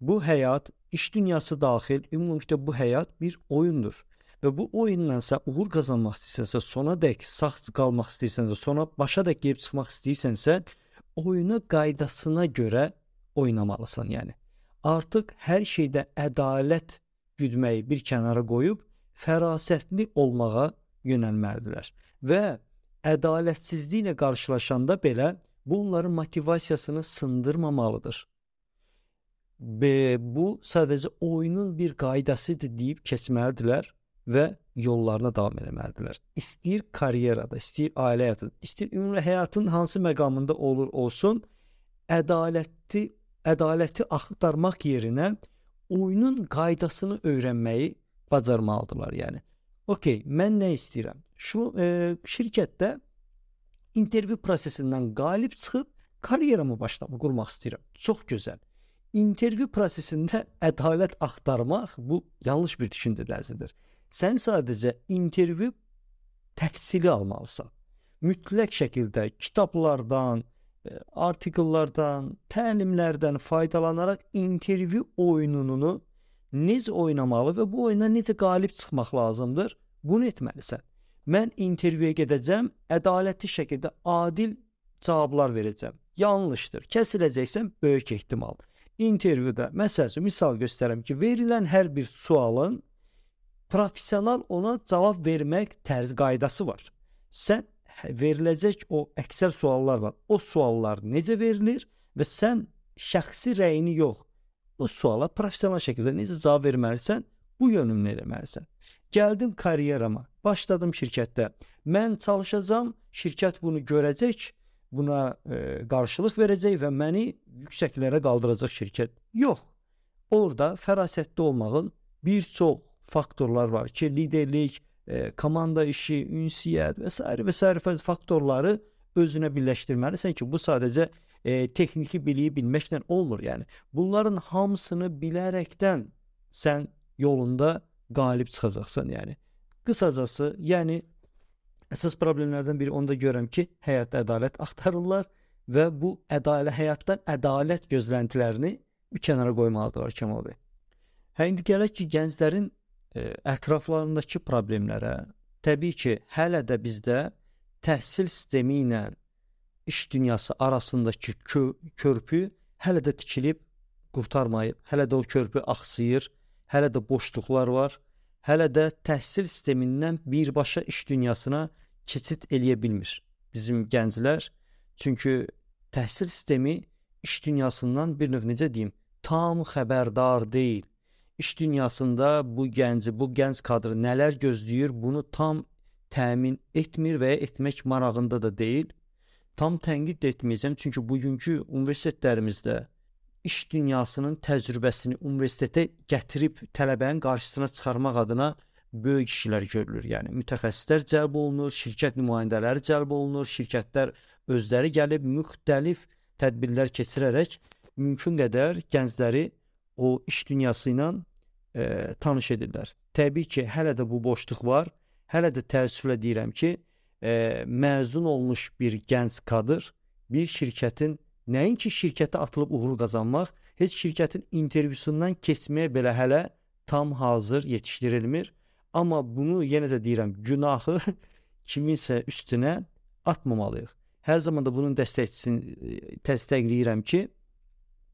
Bu həyat, iş dünyası daxil, ümumilikdə bu həyat bir oyundur. Və bu oyunla sən uğur qazanmaq istəyirsənsə, sonadək sağ qalmaq istəyirsənsə, sona başadək gəlib çıxmaq istəyirsənsə, oyuna qaydasına görə oynamalısan, yəni. Artıq hər şeydə ədalət güdməyi bir kənara qoyub fərasətli olmağa yönəlməlidirlər. Və ədalətsizliklə qarşılaşanda belə bu onların motivasiyasını sındırmamalıdır. Bu sadəcə oyunun bir qaydasıdır deyib keçməlidirlər və yollarına davam etməlidirlər. İstəyir karyerada, istəyir ailə həyatında, istəyir ümumi həyatın hansı məqamında olur olsun, ədaləti axtarmaq yerinə oyunun qaydasını öyrənməyi bacarmalıdırlar, yəni. Okey, mən nə istəyirəm? Şirkətdə intervyu prosesindən qalib çıxıb karyeramı qurmaq istəyirəm. Çox gözəl. İntervyu prosesində ədalət axtarmaq bu yanlış bir düşüncə tərzidir. Sən sadəcə intervyu təhsili almalısan. Mütləq şəkildə kitablardan, artikellərdən, təlimlərdən faydalanaraq intervyu oyununu necə oynamalı və bu oyuna necə qalib çıxmaq lazımdır, bunu etməlisən. Mən intervyuya gedəcəm, ədalətli şəkildə adil cavablar verəcəm. Yanlışdır, kəsiləcəksən böyük ehtimal. İntervyuda, misal göstərəm ki, verilən hər bir sualın professional ona cavab vermək qaydası var. Sən veriləcək o əksər suallar var. O suallar necə verilir və sən şəxsi rəyini yox, o suala professional şəkildə necə cavab verməlisən, bu yönümünü eləməlisən. Gəldim karyerama, başladım şirkətdə. Mən çalışacağam, şirkət bunu görəcək, buna qarşılıq verəcək və məni yüksəklərə qaldıracaq şirkət. Yox, orada fərasətli olmağın bir çox faktorlar var ki, liderlik, komanda işi, ünsiyyət və s. faktorları özünə birləşdirməlisən ki, bu sadəcə texniki biliyi bilməklə olmur. Yəni, bunların hamısını bilərəkdən sən yolunda qalib çıxacaqsan. Yəni, qısacası, əsas problemlərdən biri onu da görürəm ki, həyatda ədalət axtarırlar və bu həyatdan ədalət gözləntilərini bir kənara qoymalıdırlar Kəmal bəy. İndi gələk ki, gənclərin ətraflarındakı problemlərə, təbii ki, hələ də bizdə təhsil sistemi ilə iş dünyası arasındakı körpü hələ də tikilib qurtarmayıb, hələ də o körpü axsıyır, hələ də boşluqlar var, hələ də təhsil sistemindən birbaşa iş dünyasına keçid eləyə bilmir bizim gənclər. Çünki təhsil sistemi iş dünyasından bir növ necə deyim, tam xəbərdar deyil. İş dünyasında bu gənc kadrı nələr gözləyir, bunu tam təmin etmir və ya etmək marağında da deyil. Tam tənqid etməyəcəm, çünki bugünkü universitetlərimizdə iş dünyasının təcrübəsini universitetə gətirib tələbənin qarşısına çıxarmaq adına böyük işlər görülür. Yəni, mütəxəssislər cəlb olunur, şirkət nümayəndələri cəlb olunur, şirkətlər özləri gəlib müxtəlif tədbirlər keçirərək mümkün qədər gəncləri o iş dünyası ilə tanış edirlər. Təbii ki, hələ də bu boşluq var. Hələ də təəssüflə deyirəm ki, məzun olmuş bir gənc kadr bir şirkətin, nəinki şirkətə atılıb uğur qazanmaq, heç şirkətin intervyusundan keçməyə belə hələ tam hazır yetişdirilmir. Amma bunu yenə də deyirəm, günahı kiminsə üstünə atmamalıyıq. Hər zaman da bunun dəstəkləyirəm ki,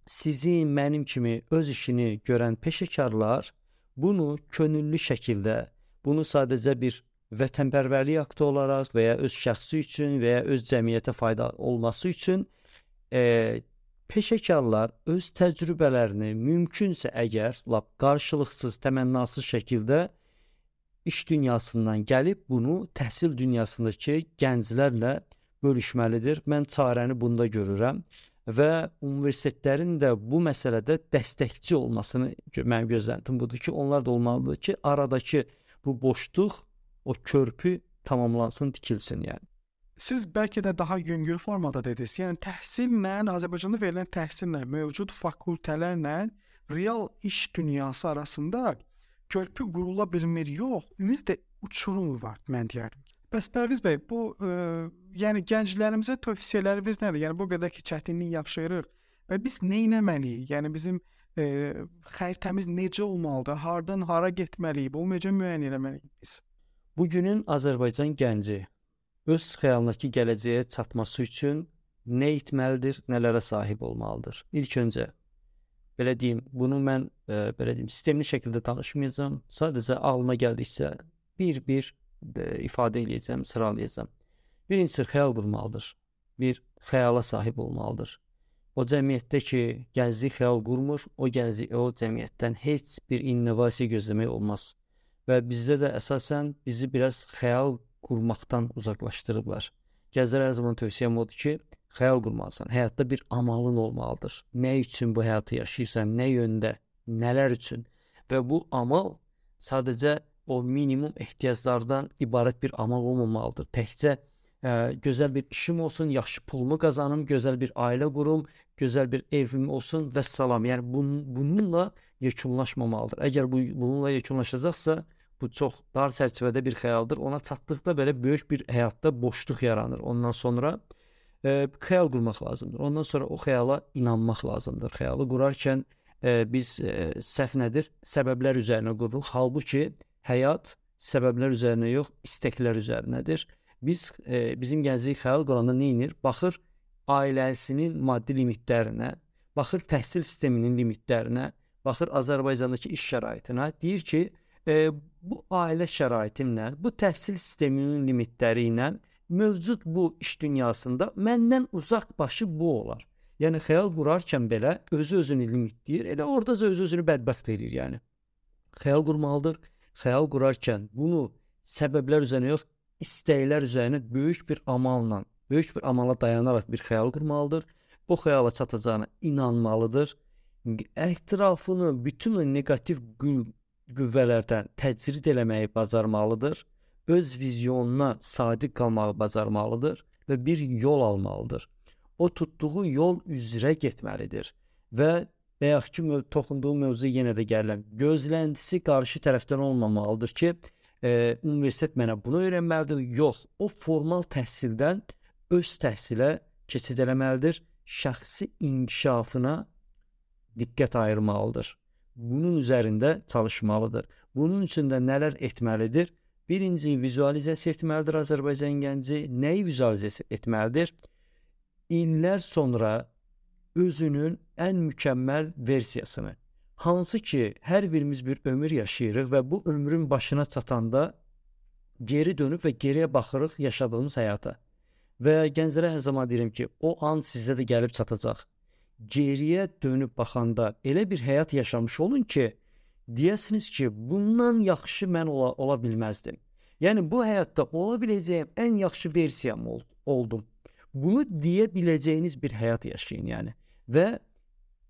sizin, mənim kimi öz işini görən peşəkarlar bunu könüllü şəkildə, bunu sadəcə bir vətənpərvərlik aktı olaraq və ya öz şəxsi üçün və ya öz cəmiyyətə fayda olması üçün peşəkarlar öz təcrübələrini mümkünsə əgər lap qarşılıqsız, təmənnasız şəkildə iş dünyasından gəlib bunu təhsil dünyasındakı gənclərlə bölüşməlidir. Mən çarəni bunda görürəm və universitetlərin də bu məsələdə dəstəkçi olmasını mənim gözləntim budur ki, onlar da olmalıdır ki, aradakı bu boşluq, o körpü tamamlansın, tikilsin yəni. Siz bəlkə də daha yüngül formada dediniz. Yəni təhsillə, Azərbaycanda verilən təhsillə, mövcud fakültələrlə real iş dünyası arasında körpü qurula bilmir, yox, ümumiyyətlə uçurum var mən deyərdim. Bəs Pərviz bəy, bu yəni gənclərimizə tövsiyələriniz nədir? Yəni bu qədər ki çətinlik yaşayırıq və biz nə etməliyik? Yəni bizim xəritəmiz necə olmalıdır? Hardan hara getməliyik? Bu necə müəyyən etməliyik biz? Bugünün Azərbaycan gənci öz xəyalındakı gələcəyə çatması üçün nə etməlidir, nələrə sahib olmalıdır? İlk öncə belə deyim, bunu mən sistemli şəkildə danışmayacağam. Sadəcə ağlıma gəldikcə bir ifadə edəcəm, sıralayacağam. Birincisi xəyal qurmalıdır. Bir xəyala sahib olmalıdır. O cəmiyyətdə ki, gənclik xəyal qurmur, o cəmiyyətdən heç bir innovasiya gözləmək olmaz. Və bizdə də əsasən bizi biraz xəyal qurmaqdan uzaqlaşdırıblar. Gənclərə hər zaman tövsiyəm odur ki, xəyal qurmalısan. Həyatda bir amalın olmalıdır. Nə üçün bu həyatı yaşayırsan, nə yöndə, nələr üçün? Və bu amal sadəcə o minimum ehtiyaclardan ibarət bir amal olmamalıdır. Təkcə gözəl bir işim olsun, yaxşı pulumu qazanım, gözəl bir ailə qurum, gözəl bir evim olsun və salam. Yəni bununla yekunlaşmamalıdır. Əgər bununla yekunlaşacaqsa, bu çox dar çərçivədə bir xəyaldır. Ona çatdıqda belə böyük bir həyatda boşluq yaranır. Ondan sonra xəyal qurmaq lazımdır. Ondan sonra o xəyala inanmaq lazımdır. Xəyalı qurarkən biz səhv nədir? Səbəblər üzərinə qururuq. Halbuki həyat səbəblər üzərinə yox, istəklər üzərinədir. Bizim gənclik xəyal quranda nə edir? Baxır ailəsinin maddi limitlərinə, baxır təhsil sisteminin limitlərinə, baxır Azərbaycandakı iş şəraitinə, deyir ki, bu ailə şəraitimlə, bu təhsil sisteminin limitləri ilə mövcud bu iş dünyasında məndən uzaq başı bu olar. Yəni xəyal qurarkən belə özü-özünü limitləyir, elə oradaca özü-özünü bədbəxt edir yəni. Xəyal qurmalıdır. Xəyal qurarkən bunu səbəblər üzərinə yox, istəklər üzərinə böyük bir amala dayanaraq bir xəyal qurmalıdır. Bu xəyala çatacağına inanmalıdır. Ətrafını bütün o negativ qüvvələrdən təcrid eləməyi bacarmalıdır. Öz vizyonuna sadiq qalmağı bacarmalıdır və bir yol almalıdır. O tutduğu yol üzrə getməlidir və bayaq ki toxunduğum mövzuya yenə də gəlirəm. Gözləntisi qarşı tərəfdən olmamalıdır ki, universitet mənə bunu öyrənməlidir. Yox, o formal təhsildən öz təhsilə keçid eləməlidir. Şəxsi inkişafına diqqət ayırmalıdır. Bunun üzərində çalışmalıdır. Bunun üçün də nələr etməlidir? Birinci, vizualizasiya etməlidir Azərbaycan gənci. Nəyi vizualizasiya etməlidir? İllər sonra özünün ən mükəmməl versiyasını, hansı ki, hər birimiz bir ömür yaşayırıq və bu ömrün başına çatanda geri dönüb və geriyə baxırıq yaşadığımız həyata. Və gənclərə hər zaman deyirəm ki, o an sizdə də gəlib çatacaq. Geriyə dönüb baxanda elə bir həyat yaşamış olun ki, deyəsiniz ki, bundan yaxşı mən ola bilməzdim. Yəni, bu həyatda ola biləcəyim ən yaxşı versiyam oldum. Bunu deyə biləcəyiniz bir həyat yaşayın, yəni. Və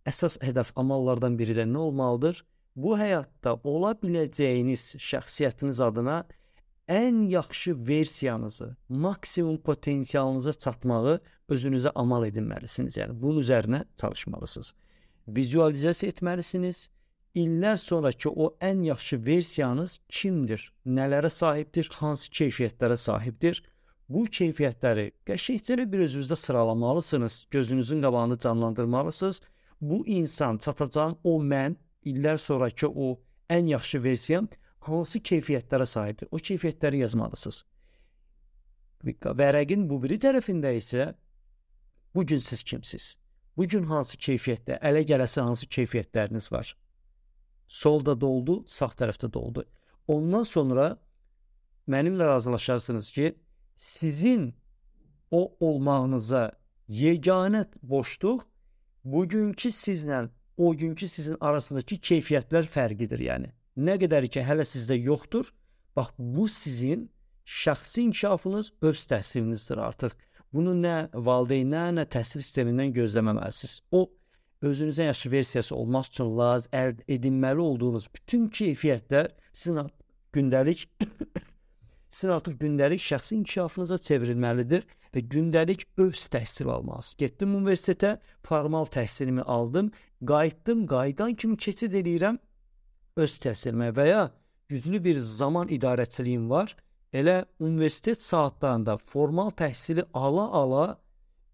əsas hədəf amallardan biri də nə olmalıdır? Bu həyatda ola biləcəyiniz şəxsiyyətiniz adına ən yaxşı versiyanızı, maksimum potensialınıza çatmağı özünüzə amal edinməlisiniz. Yəni, bunun üzərinə çalışmalısınız. Vizualizasiya etməlisiniz. İllər sonraki o ən yaxşı versiyanız kimdir? Nələrə sahibdir? Hansı keyfiyyətlərə sahibdir? Bu keyfiyyətləri qəşəngcə bir özünüzdə sıralamalısınız. Gözünüzün qabağını canlandırmalısınız. Bu insan, çatacağım o mən, illər sonraki o ən yaxşı versiyam hansı keyfiyyətlərə sahibdir? O keyfiyyətləri yazmalısınız. Vərəqin bu biri tərəfində isə bugün siz kimsiz? Bugün hansı keyfiyyətdə, ələ gələsi hansı keyfiyyətləriniz var? Solda doldu, sağ tərəfdə doldu. Ondan sonra mənimlə razılaşarsınız ki, sizin o olmağınıza yeganə boşluq bugünkü sizlə o günkü sizin arasındakı keyfiyyətlər fərqidir yəni. Nə qədər ki, hələ sizdə yoxdur, bax, bu sizin şəxsi inkişafınız, öz təhsilinizdir artıq. Bunu nə valideynlər, nə təhsil sistemindən gözləməməlisiniz. O, özünüzə yaxşı versiyası olmaq üçün əldə edinməli olduğunuz bütün keyfiyyətlər sizin artıq gündəlik şəxsi inkişafınıza çevrilməlidir və gündəlik öz təhsil almalısınız. Getdim universitetə, formal təhsilimi aldım, qayıtdım, qayıdan kimi keçid edirəm öz təhsilimə və ya güclü bir zaman idarəçiliyim var. Elə universitet saatlarında formal təhsili ala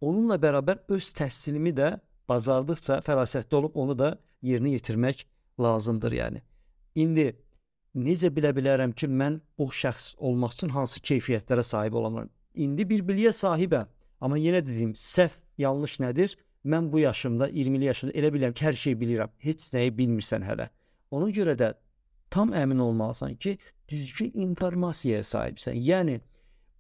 onunla bərabər öz təhsilimi də bacardıqca fərasətli olub onu da yerinə yetirmək lazımdır yəni. İndi necə bilə bilərəm ki, mən o şəxs olmaq üçün hansı keyfiyyətlərə sahib olamam? İndi bir biliyə sahibəm, amma yenə dediyim, səhv, yanlış nədir? Mən bu yaşımda, 20'li yaşımda elə bilirəm ki, hər şeyi bilirəm. Heç nəyi bilmirsən hələ. Ona görə də tam əmin olmalısan ki, düzgün informasiyaya sahibsən. Yəni,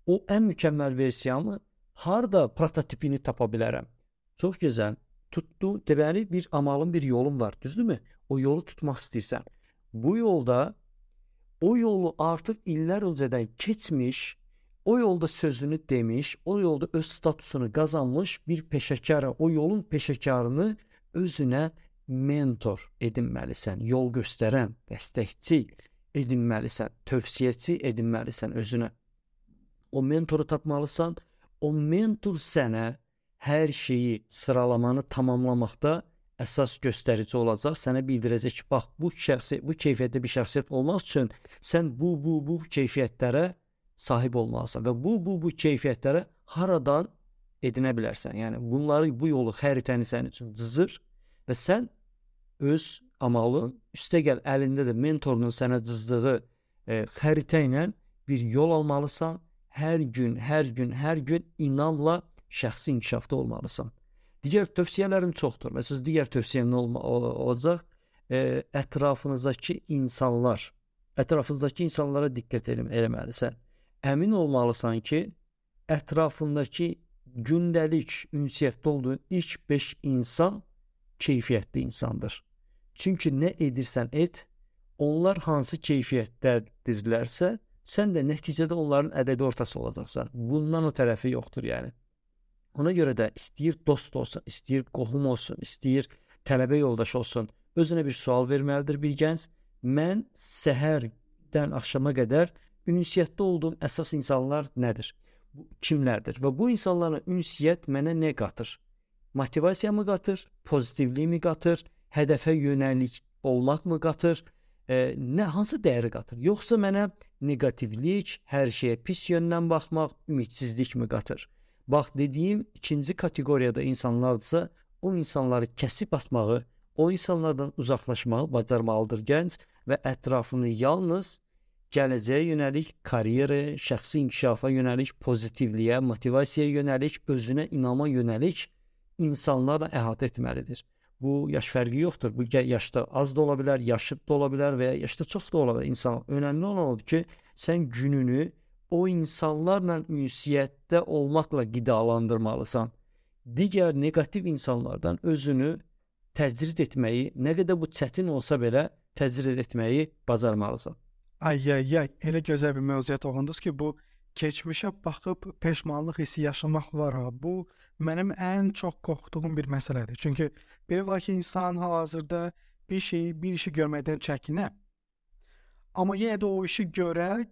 o ən mükəmməl versiyanı harda prototipini tapa bilərəm? Çox gözəl. Tutdu, deməli bir amalın, bir yolun var, düzdürmü? O yolu tutmaq istəyirsən. Bu yolda, o yolu artıq illər öncədən keçmiş, o yolda sözünü demiş, o yolda öz statusunu qazanmış bir peşəkara, o yolun peşəkarını özünə mentor edinməlisən, yol göstərən, dəstəkçi edinməlisən, tövsiyəçi edinməlisən özünə. O mentoru tapmalısan, o mentor sənə hər şeyi, sıralamanı tamamlamaqda əsas göstərici olacaq. Sənə bildirəcək ki, bax, bu keyfiyyətdə bir şəxsiyyət olmaq üçün sən bu keyfiyyətlərə sahib olmalısan və bu keyfiyyətlərə haradan edinə bilərsən. Yəni, bunları, bu yolu, xəritəni sənin üçün cızır və sən öz amalın, üstəgəl əlində də mentorunun sənə cızdığı xəritə ilə bir yol almalısan. Hər gün inamla şəxsi inkişafda olmalısan. Digər tövsiyələrim çoxdur. Məsələn, digər tövsiyəm nə olacaq? Ətrafınızdakı insanlara diqqət eləməlisən. Əmin olmalısan ki, ətrafındakı gündəlik ünsiyyətdə olduğun ilk 5 insan keyfiyyətli insandır. Çünki nə edirsən et, onlar hansı keyfiyyətdədirlərsə, sən də nəticədə onların ədədi ortası olacaqsan. Bundan o tərəfi yoxdur yəni. Ona görə də istəyir dost olsun, istəyir qohum olsun, istəyir tələbə yoldaş olsun, özünə bir sual verməlidir bir gənc. Mən səhərdən axşama qədər ünsiyyətdə olduğum əsas insanlar nədir? Kimlərdir? Və bu insanlarla ünsiyyət mənə nə qatır? Motivasiyamı qatır? Pozitivliyimi qatır? Hədəfə yönəlik olmaqmı qatır? Hansı dəyəri qatır? Yoxsa mənə negativlik, hər şeyə pis yöndən baxmaq, ümidsizlikmi qatır? Bax, dediyim ikinci kateqoriyada insanlardırsa, o insanları kəsib atmağı, o insanlardan uzaqlaşmağı bacarmalıdır gənc və ətrafını yalnız gələcəyə yönəlik, karyera, şəxsi inkişafa yönəlik, pozitivliyə, motivasiyaya yönəlik, özünə inama yönəlik insanlarla əhatə etməlidir. Bu yaş fərqi yoxdur. Bu yaşda az da ola bilər, yaşıd da ola bilər və ya yaşda çox da ola bilər insan. Önəmli olan odur ki, sən gününü o insanlarla ünsiyyətdə olmaqla qidalandırmalısan. Digər negativ insanlardan özünü təcrid etməyi, nə qədər bu çətin olsa belə təcrid etməyi bacarmalısan. Elə gözəl bir mövzuya toxundunuz ki, bu keçmişə baxıb peşmanlıq hissi yaşamaq var ha. Bu mənim ən çox qorxduğum bir məsələdir. Çünki belə var ki, insan hal-hazırda bir işi görməkdən çəkinə. Amma yenə də o işi görə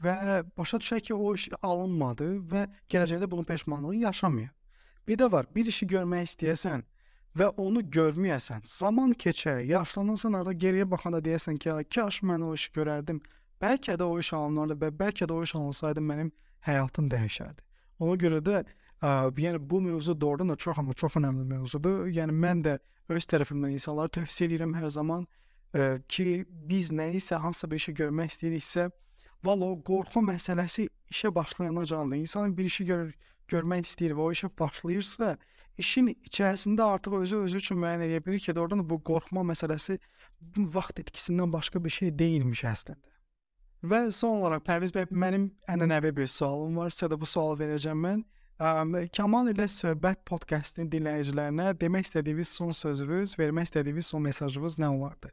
və başa düşək ki, o iş alınmadı və gələcəkdə bunun peşmanlığı yaşamıyor. Bir də var, bir işi görmək istəyəsən və onu görməyəsən, zaman keçər, yaşlanırsan, arada geriyə baxanda deyəsən ki, kaş mən o işi görərdim, bəlkə də o iş alınardı və bəlkə də o iş alınsaydı mənim həyatım dəyişərdi. Ona görə də yəni bu mövzu doğrudan da çox önəmli mövzudur. Yəni mən də öz tərəfimdən insanlara tövsiyə edirəm hər zaman ki, biz nəyisə, hansısa bir işi görmək istəyiriksə, valla o qorxu məsələsi işə başlayanacandır. İnsan bir işi görmək istəyir və o işə başlayırsa, işin içərisində artıq özü üçün müəyyən edə bilir ki, doğrudan da bu qorxma məsələsi vaxt etkisindən başqa bir şey deyilmiş əslində. Və son olaraq Pərviz bəy, mənim ənənəvi bir sualım var. Sizə də bu sualı verəcəm mən. Kamal ilə söhbət podkastının dinləyicilərinə demək istədiyiniz son sözünüz, vermək istədiyiniz son mesajınız nə olardı?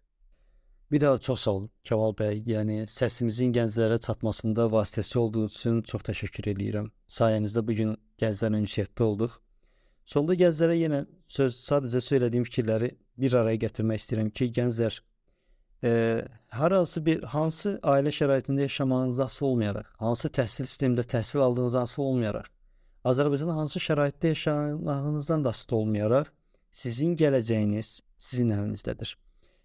Bir daha çox sağ olun Kamal bəy. Yəni səsimizin gənclərə çatmasında vasitəsi olduğunuz üçün çox təşəkkür edirəm. Sayənizdə bu gün gənclərlə ünsiyyətdə olduq. Sonda gənclərə yenə sadəcə söylədiyim fikirləri bir araya gətirmək istəyirəm ki, gənclər hansı ailə şəraitində yaşamağınızdan asılı olmayaraq, hansı təhsil sistemində təhsil aldığınızdan asılı olmayaraq, Azərbaycanda hansı şəraitdə yaşamağınızdan da asılı olmayaraq, sizin gələcəyiniz sizin əlinizdədir.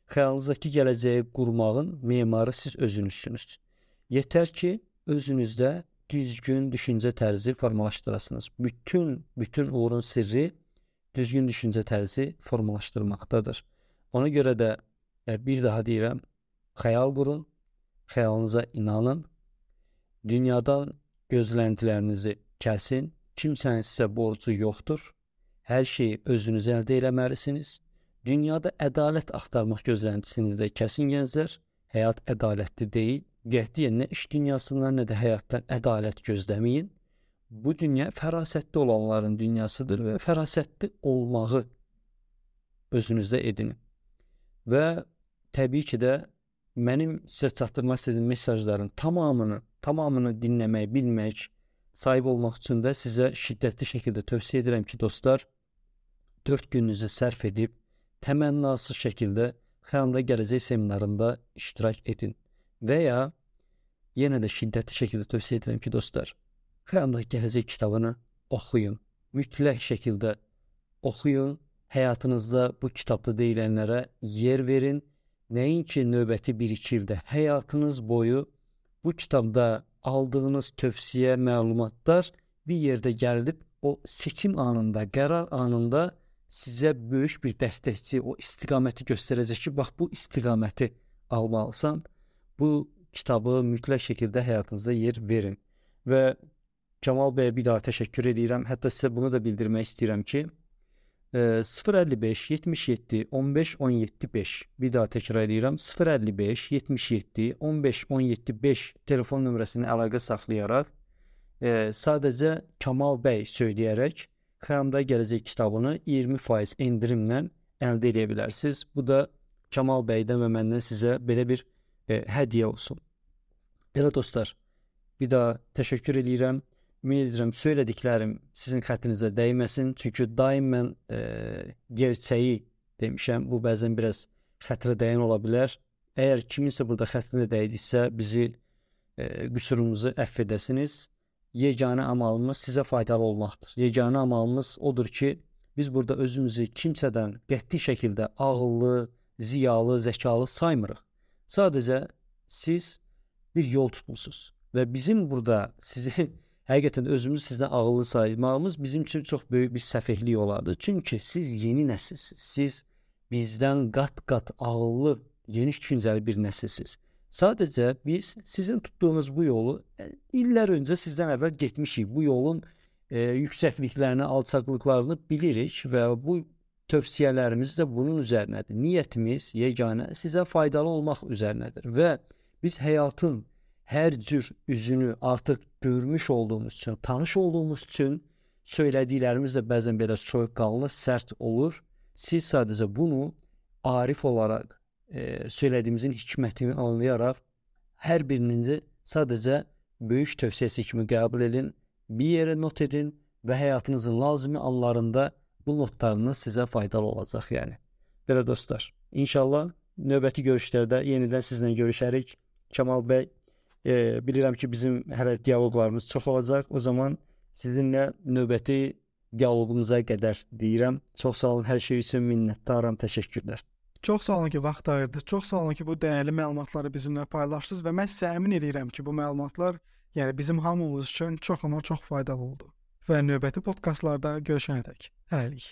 Xəyalınızdakı gələcəyi qurmağın memarı siz özünüzsünüz. Yetər ki, özünüzdə düzgün düşüncə tərzi formalaşdırasınız. Bütün uğurun sirri düzgün düşüncə tərzi formalaşdırmaqdadır. Ona görə də bir daha deyirəm, xəyal qurun, xəyalınıza inanın, dünyadan gözləntilərinizi kəsin, kimsənin sizə borcu yoxdur, hər şeyi özünüz əldə eləməlisiniz. Dünyada ədalət axtarmaq gözləntisini də kəsin gənclər, həyat ədalətli deyil, qətiyyən nə iş dünyasından, nə də həyatdan ədalət gözləməyin. Bu dünya fərasətli olanların dünyasıdır və fərasətli olmağı özünüzdə edin. Və təbii ki də mənim sizə çatdırmaq istədiyim mesajların tamamını dinləmək, bilmək, sahib olmaq üçün də sizə şiddətli şəkildə tövsiyə edirəm ki, dostlar, 4 gününüzü sərf edib, təmənnasız şəkildə Xəyalımda Gələcək seminarında iştirak edin. Və ya yenə də şiddətli şəkildə tövsiyə edirəm ki, dostlar, Xəyalımda Gələcək kitabını oxuyun. Mütləq şəkildə oxuyun. Həyatınızda bu kitabda deyilənlərə yer verin. Nəinki növbəti 1-2 ildə, həyatınız boyu bu kitabda aldığınız tövsiyə, məlumatlar bir yerdə gəlib o seçim anında, qərar anında sizə böyük bir dəstəkçi, o istiqaməti göstərəcək ki, bax bu istiqaməti almalısan, bu kitabı mütləq şəkildə həyatınızda yer verin. Və Kamal bəyə bir daha təşəkkür edirəm. Hətta sizə bunu da bildirmək istəyirəm ki, 055 77 15 17 5, bir daha təkrar edirəm, 055 77 15 17 5 telefon nömrəsini əlaqə saxlayaraq sadəcə Kamal bəy söyləyərək Xəyalımda Gələcək kitabını 20% endirimlə əldə edə bilərsiniz. Bu da Kamal bəydən və məndən sizə belə bir hədiyyə olsun. Elə dostlar, bir daha təşəkkür edirəm. Ümid edirəm söylədiklərim sizin xətrinizə dəyməsin. Çünki daim mən gerçəyi demişəm. Bu bəzən biraz xətrə dəyən ola bilər. Əgər kiminsə burada xətrinə dəydiksə bizi qüsurumuzu əfv edəsiniz. Yeganə amalımız sizə faydalı olmaqdır. Yeganə amalımız odur ki, biz burada özümüzü kimsədən qəti şəkildə ağıllı, ziyalı, zəkalı saymırıq. Sadəcə siz bir yol tutmusunuz və bizim burada sizi həqiqətən özümüzü sizdən ağıllı saymağımız bizim üçün çox böyük bir səfehlik olardı. Çünki siz yeni nəsilsiniz. Siz bizdən qat-qat ağıllı, geniş düşüncəli bir nəsilsiniz. Sadəcə biz sizin tutduğunuz bu yolu illər öncə sizdən əvvəl getmişik. Bu yolun yüksəkliklərini, alçaqlıqlarını bilirik və bu tövsiyələrimiz də bunun üzərinədir. Niyyətimiz yeganə sizə faydalı olmaq üzərinədir və biz həyatın hər cür üzünü artıq görmüş olduğumuz üçün, tanış olduğumuz üçün söylədiklərimiz də bəzən belə soyuqqanlı, sərt olur. Siz sadəcə bunu arif olaraq söylədiyimizin hikmətini anlayaraq hər birinizi sadəcə böyük tövsiyəsi kimi qəbul edin, bir yerə not edin və həyatınızın lazımi anlarında bu notlarınız sizə faydalı olacaq yəni. Belə dostlar, inşallah növbəti görüşlərdə yenidən sizlə görüşərik. Kamal bəy, bilirəm ki bizim hələ dialoqlarımız çox olacaq. O zaman sizinlə növbəti dialoqumuza qədər deyirəm. Çox sağ olun, hər şey üçün minnətdaram, təşəkkürlər. Çox sağ olun ki, vaxt ayırdınız. Çox sağ olun ki, bu dəyərli məlumatları bizimlə paylaşdınız və mən sizə əmin edirəm ki, bu məlumatlar yəni bizim hamımız üçün çox amma çox faydalı oldu. Və növbəti podkastlarda görüşənədək hələlik.